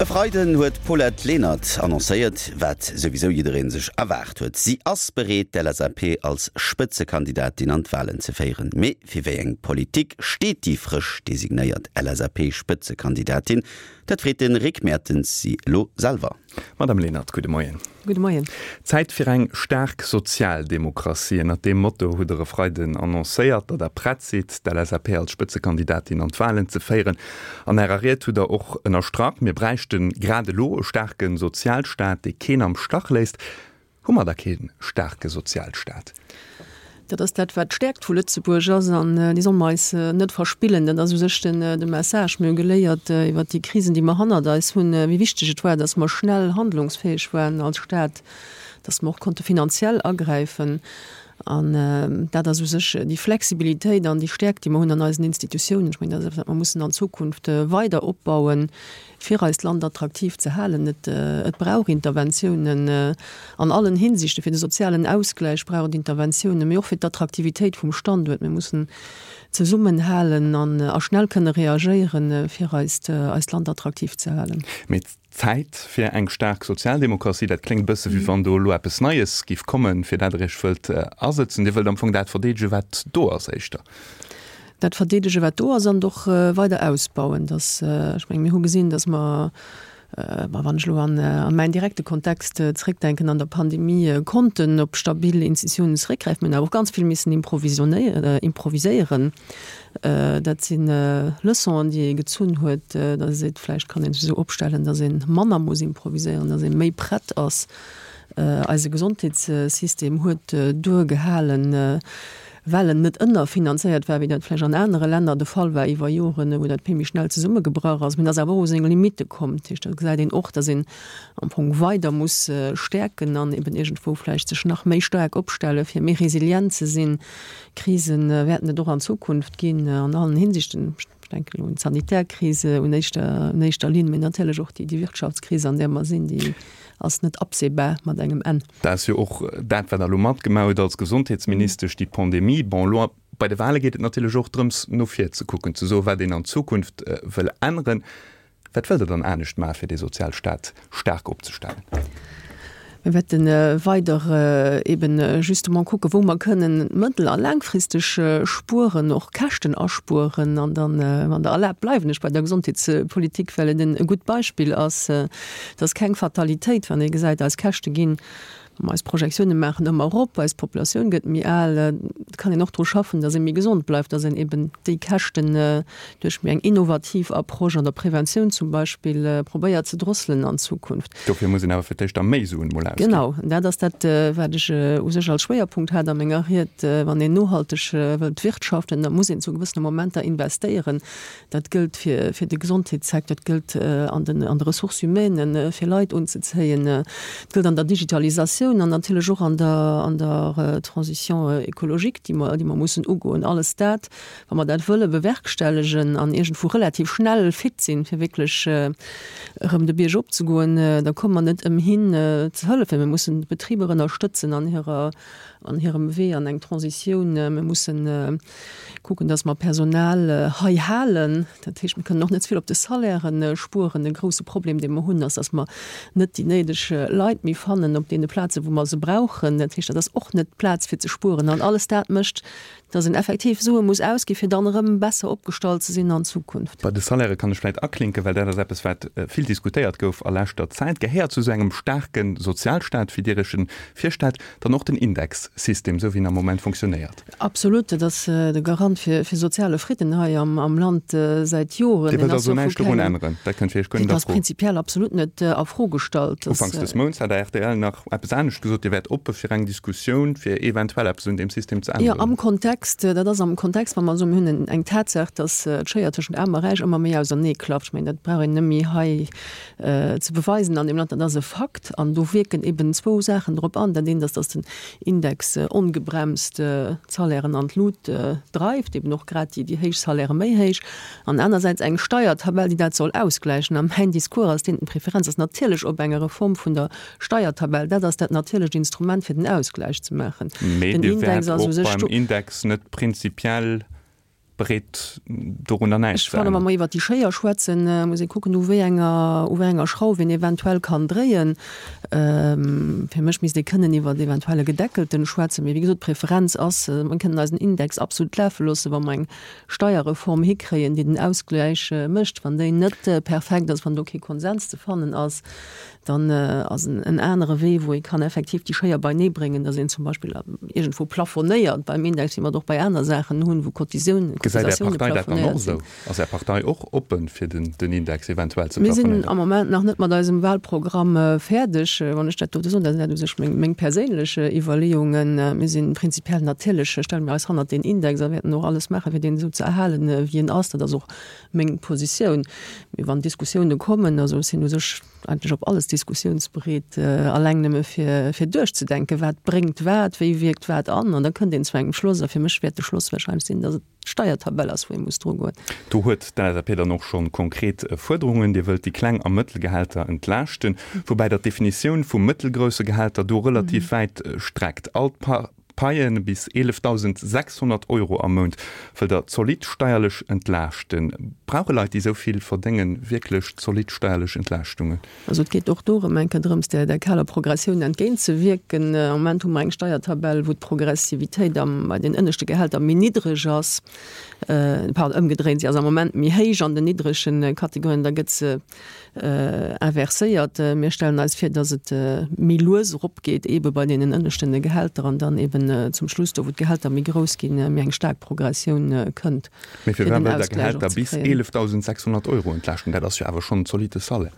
E Freiden huet d'Paulette Lenert annoncéiert, wat souwisou jidderee sech erwaart huet, Si ass bereet, d'LSAP als Spëtzekandidatin an d'Walen ze féieren. Mee fir wéi eng Politik steet déi frësch designéiert LSAP-Spëtzekandidatin? Dat freet de Rick Mertens si elo selwer. Madame Lenert, gudde Moien. Gudde Moien. Zäit fir eng staark Sozialdemokratie. Ënnert deem Motto hutt Der e Freiden annoncéiert, datt Der prett sidd, d'LSAP als Spëtzekandidatin an d'Walen ze féieren. An Ärer Ried hutt Der och ënnerstrach, mir bräichte grad elo e staarke Sozialstaat, dee keen am Stach léisst. Hu mer da kee staarke Sozialstaat? Dat ass dat, wat d'Stäerkt vu Lëtzebuerg ass, an déi solle mer eis net verspillen. Dat ass u sech de Message. Mir hu geléiert iwwert déi Krisen, déi mer hannert eis hunn, wéi wichteg et war, datt mer schnell handlungsfäeg waren als Staat, datt mer och konnte finanziell agräifen. An dat ass u sech déi Flexibilitéit an déi Stäerkt, déi mer hunn an eisen Institutiounen. Ech mengen, dat ass eppes, wat mer mussen an Zukunft weider opbauen. fir eist Land attraktiv ze halen. Et et brauch Interventiounen an allen Hinsichten, fir de sozialen Ausgläich brauch et Interventiounen, mee och fir d'Attraktivitéit vum Standuert. Mir mussen zesummenhalen an a schnell kënne reagéieren, fir eist eist Land attraktiv ze halen. Mee Zäit fir eng staark Sozialdemokratie, dat kléngt e bësse wéi wann do elo eppes Neies giff kommen, fir dat Der Iech wëllt asëtzen. Dir wëllt am Fong dat verdeedegen, wat do ass éischter. Dat verdeedege wat do ass an et och weider ausbauen. Dass, ech mengen, mir hu gesinn, dass mer, ma wann ech elo an mäin direkte Kontext zréckdenken, an der Pandemie konnten op stabil Institutiounen zeréckgräifen. Mir hunn awer och ganz vill missen improviséieren. Dat si Leçonen, déi ee gezunn huet, dass ee seet, vläicht kann ee sech esou opstellen, dass ee manner muss improviséieren, dass ee méi prett ass. Eise Gesondheetssystem huet duergehalen. Well en net ënnerfinanzéiert war, wéi dat vläicht an anere Länner de Fall war iwwer Joren, wou dat vill méi schnell zesummegebrach ass. Mee en ass awer och u seng Limitte komm. Dat heescht, do gesäit een och, datt een am Fong weider muss stäerken an eben iergendwou vläicht sech nach méi staark opstellen, fir méi resilient ze sinn. Krise wäerten et och an Zukunft ginn an allen Hinsichten. Ech denken elo un d'sanitär Krise un éischter, un éischter Linn, mee natierlech och déi, déi Wirtschaftskris, an där mer sinn, déi ass net absehbar mat engem Enn. Dat ass jo och dat, wat Der elo matgemaach hutt als Gesondheetsministesch, déi Pandemie. Bon, elo bei de Wahle geet et natierlech och drëms, no vir ze kucken, ze soen, wat een an Zukunft wëll änneren. Wat wëllt Der dann anescht maachen, fir dee Sozialstaat staark opzestellen? Mir wäerte weider eben justement kucken, wou mer kënnen mëttel a laangfristeg spueren, och Käschten aspueren. An dann, wann Der erlaabt, bleiwen ech bei der Gesondheetspolitik, well et e gutt Beispill ass. Et ass keng Fatalitéit, wann ee gesäit, eis Käschte ginn Wa mer eis Projektioune maachen, ëmmer erop, eis Populatioun gëtt méi al, et kann een och dru schaffen, datt ee méi gesond bleift, datt een eben déi Käschten duerch méi eng innovativ Approche an der Preventioun zum Beispill probéiert ze drosselen an Zukunft. Dofir muss een awer fir d'éischt da méi Suen mol ausginn. Genau, an dat ass dat, wat ech u sech als Schwéierpunkt hat a menger Ried. Wann een nohalteg wëllt wirtschaften, da muss een zu gewëssene Momenter investéieren. Dat gëllt fir fir de Gesondheetssecteur, dat gëllt an den an de Ressources humaines, fir Leit unzezéien, dat gëllt an der Digitalisatioun an natierlech och an der an der Transition écologique, déi mer déi mer mussen ugoen. Alles dat, wa mer dat wëlle bewerkstellegen an iergendwou relativ schnell fit sinn, fir wierklech erëm de Bierg opzegoen, da komme mer net ëmhin ze hëllefen. Mir mussen d'Betriber ënnerstëtzen an hirer an hirem Wee an eng Transitioun. Mir mussen kucken, dass mer Personal hei halen. Dat heescht, mir kënnen och net ze vill op de Salairen spueren. E grouse Problem, dee mer hunn, ass, dass mer net déi néideg Leit méi fannen op deene Plazen, wou mer se brauchen. Dat heescht, dat ass och net d'Plaz fir ze spueren. An alles dat mécht, dass een effektiv Sue muss ausgi fir dann erëm besser opgestallt ze sinn an Zukunft. Bei de Salairë kann ech vläicht aklinken, well dat ass eppes, wat vill diskutéiert gouf a leschter Zäit. Gehéiert zu esou engem staarke Sozialstaat, wéi Dir Iech en virstellt, dann och den Indexsystem, esou wéi en am Moment fonctionnéiert? Absolut, dat ass de Garant fir soziale Fridden hei am Land säit Joren. Dir wëllt also näischt dorun änneren? Dat kënnt fir Iech guer net a Fro? Dat ass prinzipiell absolut net a Fro gestallt. Ufanks des Mounts hat der rtl nach eppes anescht gesot, Dir wäert oppe fir eng Diskussioun, fir eventuell eppes un deem System ze änneren. Jo, am Kontext, dat ass am Kontext, wa mer soen, mir hunn eng Tatsaach, datt d'Schéier tëschent Aarm a Räich ëmmer méi auserneeklafft. Ech mengen, dat brauch een net méi hei ze beweisen an deem Land, dat ass e Fakt. An do wierken eben zwou Saachen drop an. Dat eent ass, datt den Index ongebremst d'Salairen an d'Lut dreift, eben och grad déi héich Salairë méi héich, an anersäits eng Steiertabell, déi dat soll ausgläichen. A mäin Discours ass deen, d'Preferenz ass natierlech op enger Reform vun der Steiertabell. Dat ass dat natierlecht Instrument, fir den Ausgläich ze maachen. Mee Den Dir wäert och beim Index net prinzipiell. Bereet dorunner näischt ze änneren. Ech fannen, wa mer iwwert déi Schéier schwätzen, muss ee kucken, u wéi enger, u wéi enger Schrauf een eventuell kann dréien. Fir mech misst ee kënnen iwwert eventuell e Gedeckelten schwätzen. Mee wéi gesot, d'Preferenz ass, mer kënnen eisen Index absolut lafe loossen, wa mer eng Steierreform hikréien, déi den Ausgläich mécht. Wann déi net perfekt ass, wann do kee Konsens ze fannen ass, Dann ass en anere Wee, wou ee kann effektiv déi Schéier beinee bréngen, datt een zum Beispill iergendwou plafonéiert beim Index, wéi mer et och bei aner Saachen hunn, wou Cotisioun, Gesäit Är Cotisatioune Partei dat dann och plafonéiert sinn. esou? Ass Är Partei och oppen, fir den Index eventuell ze Mir sinn plafonéieren? am Moment nach net mat eisem Wahlprogramm fäerdeg. Wann ech dat dote soen, dat sinn dat u sech meng, meng perséinlech Iwwerleeungen. Mir si prinzipiell natierlech, stelle mir eis hannert deen Index a wäerten och alles maachen, fir deen esou ze erhalen, wéi en ass. Dat ass och meng Positioun. Mee wann Diskussioune kommen, also ech sinn u sech eigentlech op alles diskussiounsbereet, alleng nëmme fir fir duerchzedenken, wat bréngt wat, wéi wierkt wat an, an da kënnt een zu engem Schloss. A fir mech wäert de Schloss wahrscheinlech sinn, datt et d'Steiertabell ass, wou ee muss drugoen. Do huet d'LSAP dann och scho konkret Fuerderungen. Dir wëllt déi kleng a mëttel Gehälter entlaaschten, woubäi Der d'Definitioun vu mëttelgrousse Gehälter do relativ wäit streckt. All Paie bis 11.600 Euro am Mount wëllt Der zolidd steierlech entlaaschten. Brauche Leit, déi esou vill verdéngen, wierklech zolidd steierlech Entlaaschtungen? Also et geet och do erëm eng Kéier drëms, där där kaler Progressioun entgéintzewierken. Am Moment hu mer eng Steiertabell, wou d'Progressivitéit am bei den ënneschte Gehälter méi niddreg ass, pardon, ëmgedréint, si ass am Moment méi héich an den niddrege Kategorien, da gëtt se inverséiert. Mir stellen eis vir, dass et méi lues eropgeet, eebe bei deenen ënneschten Gehälter an dann eeben zum Schluss, do wou d'Gehälter méi grouss ginn, méi eng staark Progressioun kënnt, Mee fir firwat den wëllt Der Ausgläich och Gehälter ze bis kréien. 11.600 Euro entlaaschten? Dat ass jo awer schonn en zolitte Salaire.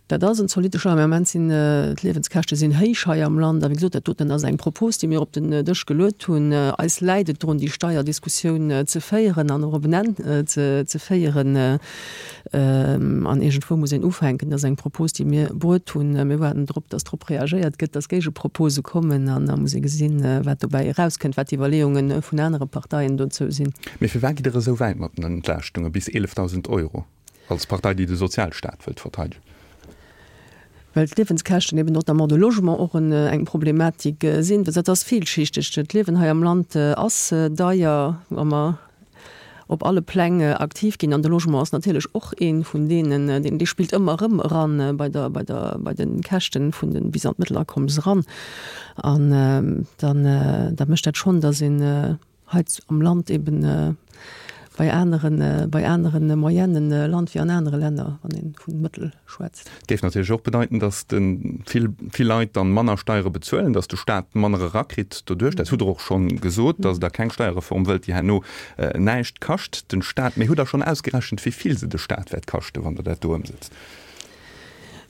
Dat ass en zolitte Salaire, mä am Moment sinn d'Liewenskäschte sinn héich hei am Land. A wéi gesot, dat doten ass eng Propos, déi mir op den Dësch geluet hunn. Eis läit et drun, déi Steierdiskussioun ze féieren an och op en Enn ze féieren. An iergendwou muss een ufänken. Dat ass eng Propos, déi mir bruet hunn. Mir waarden drop, datt drop reagéiert gëtt, datt Géigepropose kommen. An da muss ee gesinn, wat dobäi erauskënnt, wat d'Iwwerleeunge vun anere Parteien dozou sinn. Mee firwat gitt Der esou wäit mat den Entlaaschtunge bis 11.000 Euro, als Partei, déi de Sozialstaat wëllt verteidegen? Well d'Liewenskäschten eben notamment de Logement och eng Problematik sinn. Dat ass villschichteg. D'Liewen hei am Land ass deier, wa mer op alle Pläng aktiv ginn. An de Logement ass natierlech och ee vun deenen, deen, dee spillt ëmmer erëm eran bei der, bei der, bei de Käschten vun de bis an d'Mëttelakommes eran. An dann, da mécht dat schonn, datt een hei am Land eben bei aneren, bei anere Moyennen lant wéi an anere Länner, wann ee vu Mëttel schwätzt. Dat géif natierlech och bedeiten, datt de vill, vill Leit dann manner Steiere bezuelen, datt de Staat manner erakritt doduerch. Dat hutt Der och schonn gesot, datt Der keng Steierreform wëllt, déi herno näischt kascht den Staat. Mee hutt Der schonn ausgerechent, wéi vill se de Staat wäert kaschten, wann Der dat do ëmsetzt?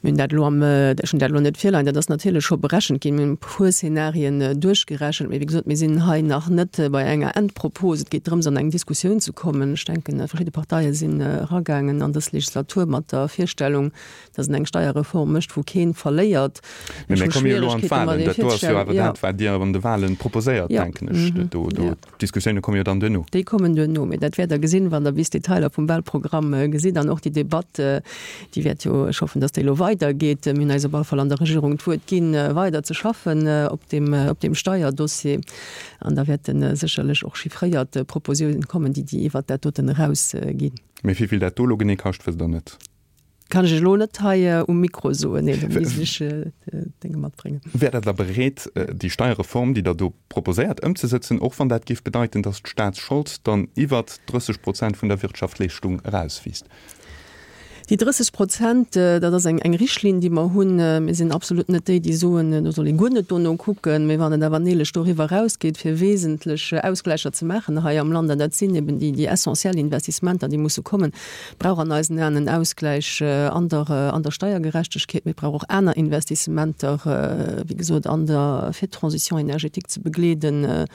Mir hunn dat elo am, ech hunn dat elo net virleien, dat ass natierlech scho berechent ginn. Mir hunn e puer Szenarien duerchgerechent, mee wéi gesot, mir sinn hei nach net bei enger Endpropos. Et geet drëms, an eng Diskussioun ze kommen. Ech denken, verschidde Parteie sinn eragaangen an dës Legislatur mat der Virstellung, datt een eng Steierreform mécht, wou kee verléiert. Mee mir komme jo elo an d'Wahlen. Dat do ass jo awer dat, wat Dir an de Wahlen proposéiert, denken ech. Do, do. D'Diskussioune komme jo dann duerno. Déi kommen duerno, mee dat wäert Der gesinn, wann Der bis d'Detailer vum Wahlprogramm gesitt. An och déi Debatt, déi wäert jo, ech hoffen, datt déi elo weidergeet. Mir hunn eis op alle Fall an der Regierung d'Wuert ginn, weider ze schaffen op deem, op deem Steierdossier. An da wäerte sécherlech och chiffréiert Proposiounen kommen, déi, déi iwwert dat doten erausginn. Mee wéi vill dat do elo genee kascht, wësst Der net? Kann ech elo net hei um Mikro soen, nee, do misst ech Dénge matbréngen. Wäert Der da bereet, déi Steierreform, déi Der do proposéiert, ëmzesëtzen, och wann dat géif bedeiten, datt d'Staatsschold dann iwwert 30 Prozent vun der Wirtschaftleeschtung erauswiisst? Déi 30 Prozent, dat ass eng Richtlinn, déi mer hunn. Mir sinn absolut net déi, déi soen, do soll ee guer net dono kucken. Mee wann et awer neelech doriwwer erausgeet, fir wesentlech Ausgläicher ze maachen hei am Land, an dat sinn eben déi essentiell Investissementer, déi musse kommen, brauch an eisen Aen en Ausgläich an der, an der Steiergerechtegkeet, mee et brauch och aner Investissementer, wéi gesot, an der, fir d'Transition énergétique ze begleeden,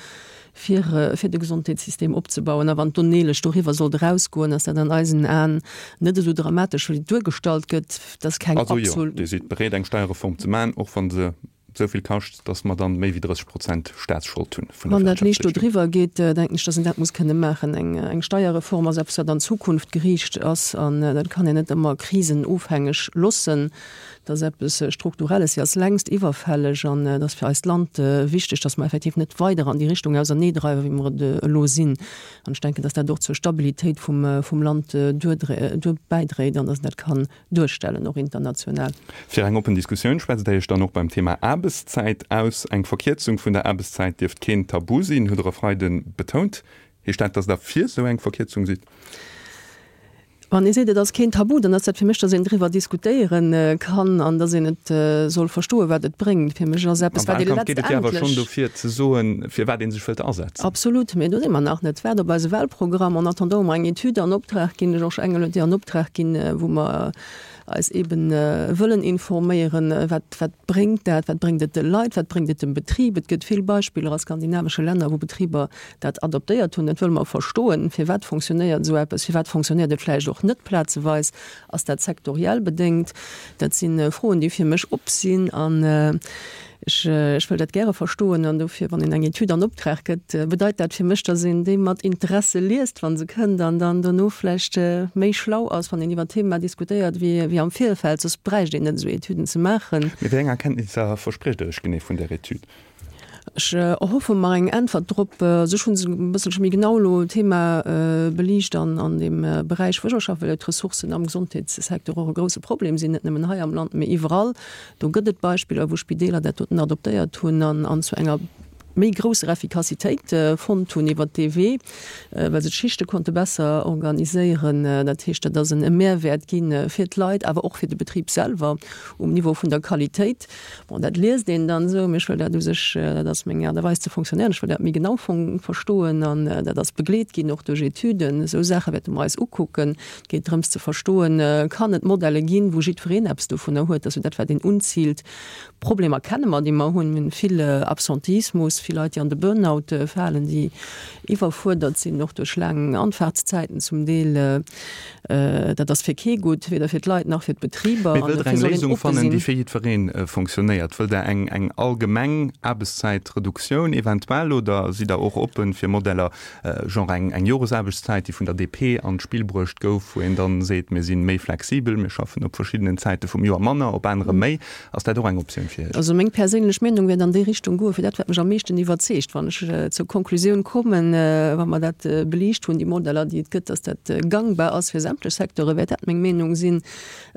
fir, fir de Gesondheetssystem opzebauen. A wann d'Onneelech doriwwer sollt erausgoen, ass dat an eisen Aen net esou dramatesch, wéi et duergestallt gëtt. Dat ass keng Also jo, Dir sidd bereet, eng Steierreform ze maachen, och wa se. esou vill kascht, datt mer dann méi wéi 30 Prozent Staatsschold hunn vun der Wann dat liicht do driwwer geet, denken ech, datt een dat muss kënne maachen. Eng Steierreform ass eppes, wat an d'Zukunft geriicht ass an dat kann een net ëmmer krisenofhängeg loossen. Dat ass eppes Strukturelles, déi ass längst iwwerfälleg an et ass fir eist Land wichteg, datt mer effektiv net weider an déi Richtung auserneedreiwen, wéi mer et elo sinn. An ech denken, datt dat och zur Stabilitéit vum Land duer bäidréit an datt een dat kann duerstellen, och international. Fir eng oppen Diskussioun schwätzt Der Iech dann och beim Thema Aarbechtszäit aus. Eng Verkierzung vun der Aarbechtszäit dierft keen Tabu sinn, hutt Der e Freide betount. Heescht dat, datt Der fir esou eng Verkierzung sidd? Wann ee seet, et ass keen Tabu, dann ass dat fir mech, datt een driwwer diskutéiere kann an datt een et soll verstoen, wat et bréngt. Fir mech ass eppes, wat ee letztendlech. Am Wahlkampf geet et jo awer schonn dofir ze soen, fir wat ee sech wëllt asetzen. Absolut, mee do si mer nach net. Waart op eise Wahlprogramm. En attendant hu mer eng Etüd an Optrag ginn, de Georges Engel huet déi an Optrag ginn, wou mer eis eeben wëllen informéieren, wat, wat bréngt dat, wat bréngt et de Leit, wat bréngt et dem Betrib. Et gëtt vill Beispiller a skandinavesche Länner, wou Betriber dat adoptéiert hunn. Dat wëlle mer verstoen. Firwat fonctionnéiert esou eppes? Firwat fonctionnéiert et vläicht och net plazeweis? Ass dat sektoriell bedéngt? Dat si Froen, déi fir mech op sinn. An ech, ech wëll dat gäre verstoen. An dofir, wann een eng Etüd an Optrag gëtt, bedeit dat fir mech, dass een déi mat Interesse liest, wa se kënnt, an dann dono vläicht méi schlau ass, wann een iwwer d'Thema diskutéiert, wéi, wéi am Virfeld. Soss bräicht een net esou Etüden ze maachen. Mee wéi eng Erkenntnisser verspriecht Der Iech genee vun där Etüd? Ech erhoffe mer eng Äntwert drop. Also ech hu se e bësselche méi genau elo d'Thema beliicht an an deem Beräich, wou ech och schaffen, well jo d'Ressourcen am Gesondheetssecteur och e grouse Problem sinn, net nëmmen hei am Land, mee iwwerall. Do gëtt et Beispiller, wou Spideeler dat doten adoptéiert hunn an an zu enger méi grousser Effikassitéit fonnt hunn iwwert dee Wee, well se d'Schichte konnte besser organiséieren. Dat heescht, dat ass en Mehrwäert gi fir d'Leit, awer och fir de Betrib selwer um Niveau vun der Qualitéit. Bon, dat liest een dann esou, mee ech wëll dat u sech, dat ass meng Aart a Weis ze fonctionnéieren, ech wëll dat méi genau verstoen an dat ass begleet ginn och duerch Etüden. Esou Saache wäerte mer eis ukucken. Et geet drëms ze verstoen, kann et Modelle ginn, wou jiddwereen eppes dovunner huet, dass jo dat wat een unziilt. Problemer kenne mer, déi mer hunn. Mir hunn vill Absenteismus, vill Leit, déi an de Burnout falen, déi iwwerfuerdert sinn, och duerch laang Anfahrtszäiten zum Deel. Dat ass fir kee gutt, weder fir d'Leit nach fir d'Betriber. Mee wëllt Der eng Léisung fannen, déi fir jiddweree fonctionnéiert? Wëllt Der eng eng allgemeng Aarbechtszäitreduktioun eventuell oder sidd Der och oppen fir Modeller, genre eng eng Joresaarbechtszäit, déi vun der DP an d'Spill bruecht gouf, wou een dann seet, mir si méi flexibel, mir schaffen op verschiddenen Zäite vum Joer manner, op anere méi? Ass dat och eng Optioun fir Iech? Also meng perséinlech Meenung wäert an déi Richtung goen, fir dat wat mech am meeschten iwwerzeegt, wann ech zur Konklusioun kommen, wa mer dat beliicht hunn, déi Modeller déi et gëtt, dass dat gangbar ass fir sämtlech Secteure, wäert dat meng Meenung sinn.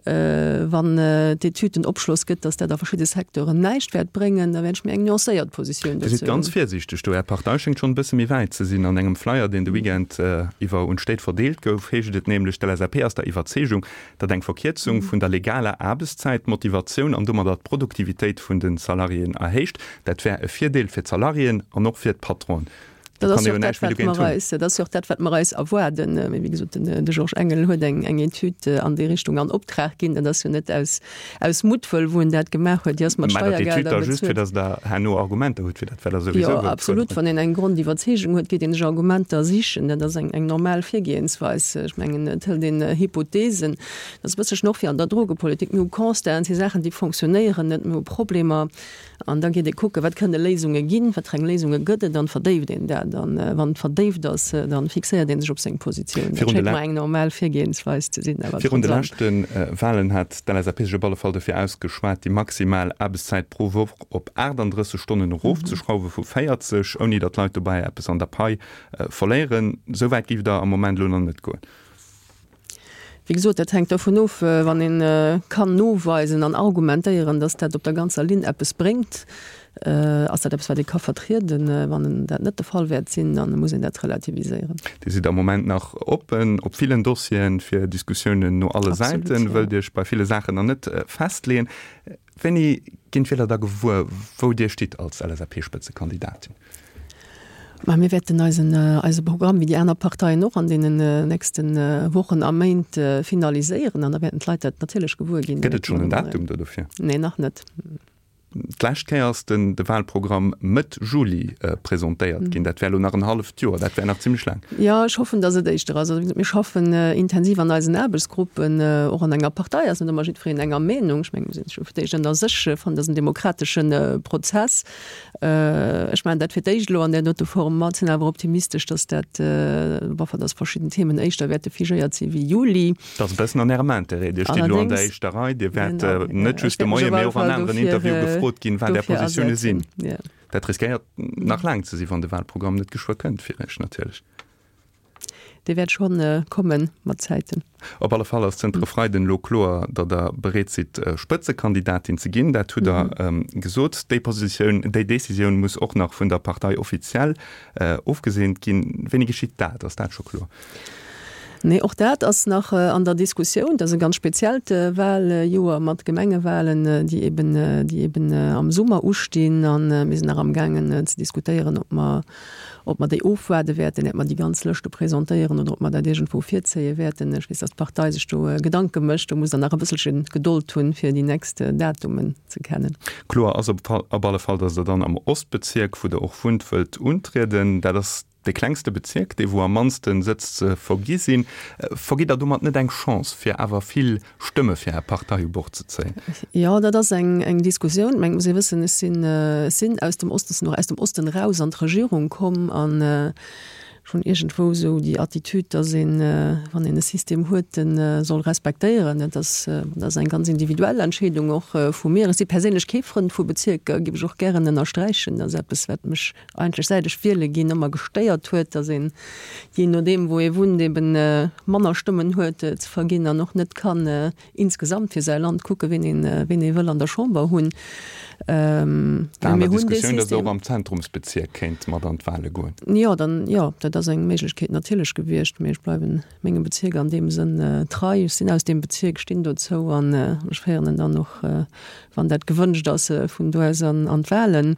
Wann d'Etüd den Opschloss gëtt, dass dat a verschidde Secteuren näischt wäert bréngen, da wäert ech méi eng nuancéiert Positioun Dir sidd dozou ganz hunn. virsiichteg do. Är Partei schéngt schonn e bësse méi wäit ze sinn. An engem Flyer, deen de Weekend iwwer un d'Stéit verdeelt gouf, heescht et nämlech, D'LSAP ass der Iwwerzeegung, datt eng Verkierzung vun der legaler Aarbechtszäit d'Motivatioun an domadder d'Produktivitéit vun de Salariéen erhéicht. Dat wär e Virdeel fir d'Salariéen an och fir d'Patronen. Do kann ee jo näischt méi dogéint hunn. Dat ass jo och dat, wat mer eis erwaarden. Mee wéi gesot, de Georges Engel huet eng Etüd an déi Richtung an Optrag ginn. Dat ass jo net aus Muttwëll, wou en dat gemaach huet. Déi ass mat Steiergelder bezuelt. Mä dat Etüd da just, fir datt Der herno Argumenter hutt fir dat, wat Der souwisou wëllt fuerderen. Jo, absolut. Wann een eng Grondiwwerzeegung huet, geet een sech Argumenter sichen. Dat ass eng normal Virgehensweis. Ech mengen, et hëlt een Hypotheesen. Dat ass e bësselchen och wéi an der Drogepolitik. Mir hu Constaten, et si Saachen, déi fonctionnéieren net. Mir hu Problemer. An da geet ee kucken, wat kënne Léisunge ginn, wat fir eng Léisunge gëtt et, an verdéift een dat. An wann et verdéift ass, da fixéiert ee sech op seng Positioun. Dat schéngt mer eng normal Virgehensweis ze sinn. Awer Virun de leschte Walen hat d'LSAP sech op alle Fall dofir ausgeschwat, déi maximal Aarbechtszäit pro Woch op 38 Stonnen erofzeschrauwe vu 40, ouni datt d'Leit dobäi eppes an der Pai verléieren. Esou wäit géift Der am Moment elo nach net goen. Wéi gesot, dat hänkt dovun of, wann ee kann noweisen an argumentéieren, datt dat op der ganzer Linn eppes bréngt, ass dat eppes, wat ee ka vertrieden. Wann dat net de Fall wäert sinn, da muss een dat relativiséieren. Dir sidd am Moment nach oppen op villen Dossieren fir Diskussiounen no alle Säiten, wëllt Iech bei ville Saachen nach net festleeën. Wéini ginn d'Wieler da gewuer, wou Dir stitt als LSAP-Spëtzekandidatin? Ma mir wäerten eisen, eise Programm, wéi déi aner Parteien och, an deenen nächste Wochen a Méint finaliséieren an da wäerten d'Leit dat natierlech gewuer ginn. Gëtt et schonn en Datum do dofir? Nee, nach net. D'lescht Kéier ass den de Wahlprogramm Mëtt Juli presentéiert ginn. Dat wär elo nach en halleft Joer. Dat wär nach zimlech laang. Jo, ech hoffen, datt et éischter ass. Also, wéi gesot, mir schaffen intensiv an eisen Aarbechtsgruppen. Och an enger Partei ass net ëmmer jiddwereen enger Meenung. Ech mengen, mir sinn scho fir d'éischt ënner sech. Ech fannen, dat ass en demokratesche Prozess. Ech maachen dat fir d'éischt elo an där dote Form mat, sinn awer optimistesch, datt dat, enfin, datt verschidden Themen éischter wäerte figéiert si wéi Juli. Dat ass e bëssen an Ärem Interêt. Dir stitt elo an der éischter Rei. Dir wäert net just de Moien, mee och an aneren Interviewe gefrot ginn, wat Är Positioune sinn. Dat riskéiert nach laang ze sinn, wann de Wahlprogramm net geschwë kënnt, fir Iech natierlech. Dee wäert scho komme mat Zäiten. Op alle Fall ass zënter e Freiden elo kloer, datt Der bereet sidd, Spëtzekandidatin ze ginn. Dat hutt Der gesot. Déi Positioun, déi Decisioun muss och nach vun der Partei offiziell ofgeseent ginn. Wéini geschitt dat? Ass dat scho kloer? Nee, och dat ass nach an der Diskussioun. Dat ass e ganz speziellt Wahljoer mat Gemengewahlen, déi eben, déi eben am Summer ustinn. A mir sinn nach amgaangen ze diskutéieren, ob mer, ob mer déi ofwaarde wäerten, iert mer déi ganz Lëschte presentéieren oder ob mer dat iergendwou virzéie wäerten. Ech weess, datt d'Partei sech do Gedanke mécht. Do musst Der nach e bësselche Gedold hunn, fir déi nächst Datumen ze kennen. Kloer ass op alle Fall, datt Der dann am Ostbezierk, wou Der och wunnt, wëllt untrieden. Dat ass Dee klengste Bezierk, dee wou am mannste Sëtz ze vergi sinn. Vergitt Der domat net eng Chance, fir awer vill Stëmme fir Är Partei u Bord ze zéien? Jo, dat ass eng eng Diskussioun. Mä et muss ee wëssen, ech sinn, ech sinn aus dem Osten, sinn och aus dem Osten eraus an d'Regierung komm an ech hunn iergendwou esou déi Attitude, datt een, wann een e System huet, e soll respektéieren. Dat ass, dat ass eng ganz individuell Entscheedung och vu mir. Ech si perséinlech kee Frënd vu Bezierker, géif ech och gären ënnersträichen. Dat ass eppes, wat mech eigentlech säit ech wiele ginn ëmmer gestéiert huet, datt een, jee nodeem wou ee wunnt, eben manner Stëmmen huet ze verginn an och net kann insgesamt fir säi Land kucken, ween een, ween ee wëll an der Chamber hunn. Mä mir hunn dee System. Datt och am Zentrumsbezierk kéint mat an d'Wahle goen. Jo, dann, jo, dat ass eng Méiglechkeet natierlech gewiescht, mee ech bleiwen mengem Bezierk an deem Sënn trei. Ech sinn aus deem Bezierk, stinn dozou an ech féieren en dann och, wann dat gewënscht ass, vun do aus an d'Wahlen.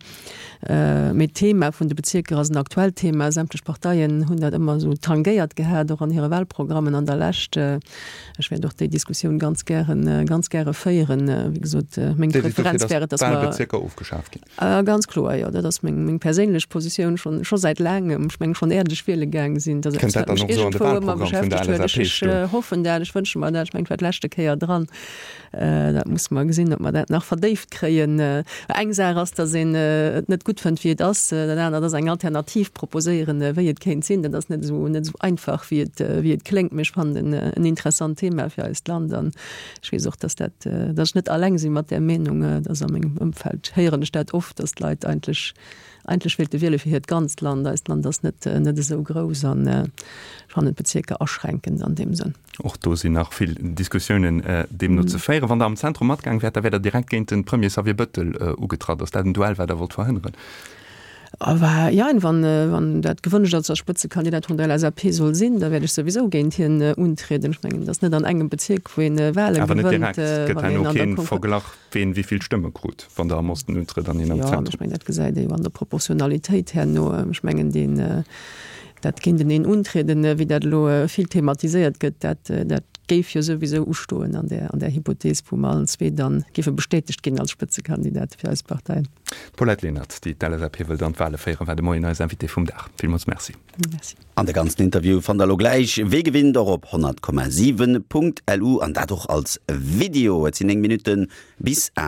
Mee d'Thema vun de Bezierker ass en aktuellt Thema. Sämtlech Parteien hunn dat ëmmer esou tangéiert gehat, och an hire Wahlprogrammen an der Lescht. Ech wäert och déi Diskussioun ganz gären, ganz gäre féieren. Wéi gesot, meng Preferenz wär et, datt mer. D'Wahlbezierker ofgeschaaft ginn. Ganz kloer, jo. Dat ass meng, meng perséinlech Positioun schonn, scho säit laangem. Ech mengen, schonn äert ech wiele gaang sinn, dat ass eppes, wat mech iergendwou ëmmer beschäftegt huet. Ech hoffen dat, ech wënsche mer dat. Ech mengen, et war d'leschte Kéier dran. Dat musse mer gesinn, ob mer dat nach verdéift kréien. Eng Saach ass, datt een et net gutt fënnt, wéi et ass. Dat anert ass eng Alternativ proposéieren, wéi et kéint sinn. Dat ass net esou, net esou einfach, wéi et, wéi et kléngt. Mee ech fannen en en interessant Thema fir eist Land. An ech weess och, datt dat, datt ech net alleng si mat där Meenung. Et ass a mengem Ëmfeld héieren ech dat oft, datt d'Leit eigentlech, eigentlech wéilte wiele fir hiert ganzt Land. Eist Land ass net, net esou grouss an ech fannen d'Bezierker aschränkend an deem Sënn. Och do sinn nach vill Diskussiounen deemno ze féieren. Wann Der am Zentrum matgaang wäert, da wäert Der direkt géint de Premier Xavier Bëttel ugetratt. Ass dat en Duell, wat Der wollt verhënneren? Jein, wann dat gewënscht ass, datt ech Spëtzekandidat vun der LSAP soll sinn, da wäert ech souwisou géint hien untrieden. Ech mengen, et ass net an engem Bezierk, wou een Wale gewënnt. Awer net direkt. Et gëtt herno kee Verglach, ween wéi vill Stëmme krut, wann Der am Osten untrëtt an hien am Zentrum. Jo, ech mengen, dat gesäit ee jo an der Proportionalitéit herno. Ech mengen, deen Dat géinteneen untrieden, wéi dat elo vill thematiséiert gëtt, dat, dat géif jo souwisou ustoen an där, an där Hypothees, wou mer allen zwee dann géife bestätegt ginn als Spëtzekandidate fir eis Parteien. D'Paulette Lenert, déi d'LSAP wëllt an d'Wale féieren, war de Moien eis Invitée vum Dag. Villmools Merci. Merci. An de ganzen Interview fannt der elo gläich wéi gewinnt och op 100,7.lu an dat och als Video. Et sinn 9 Minutte bis 8.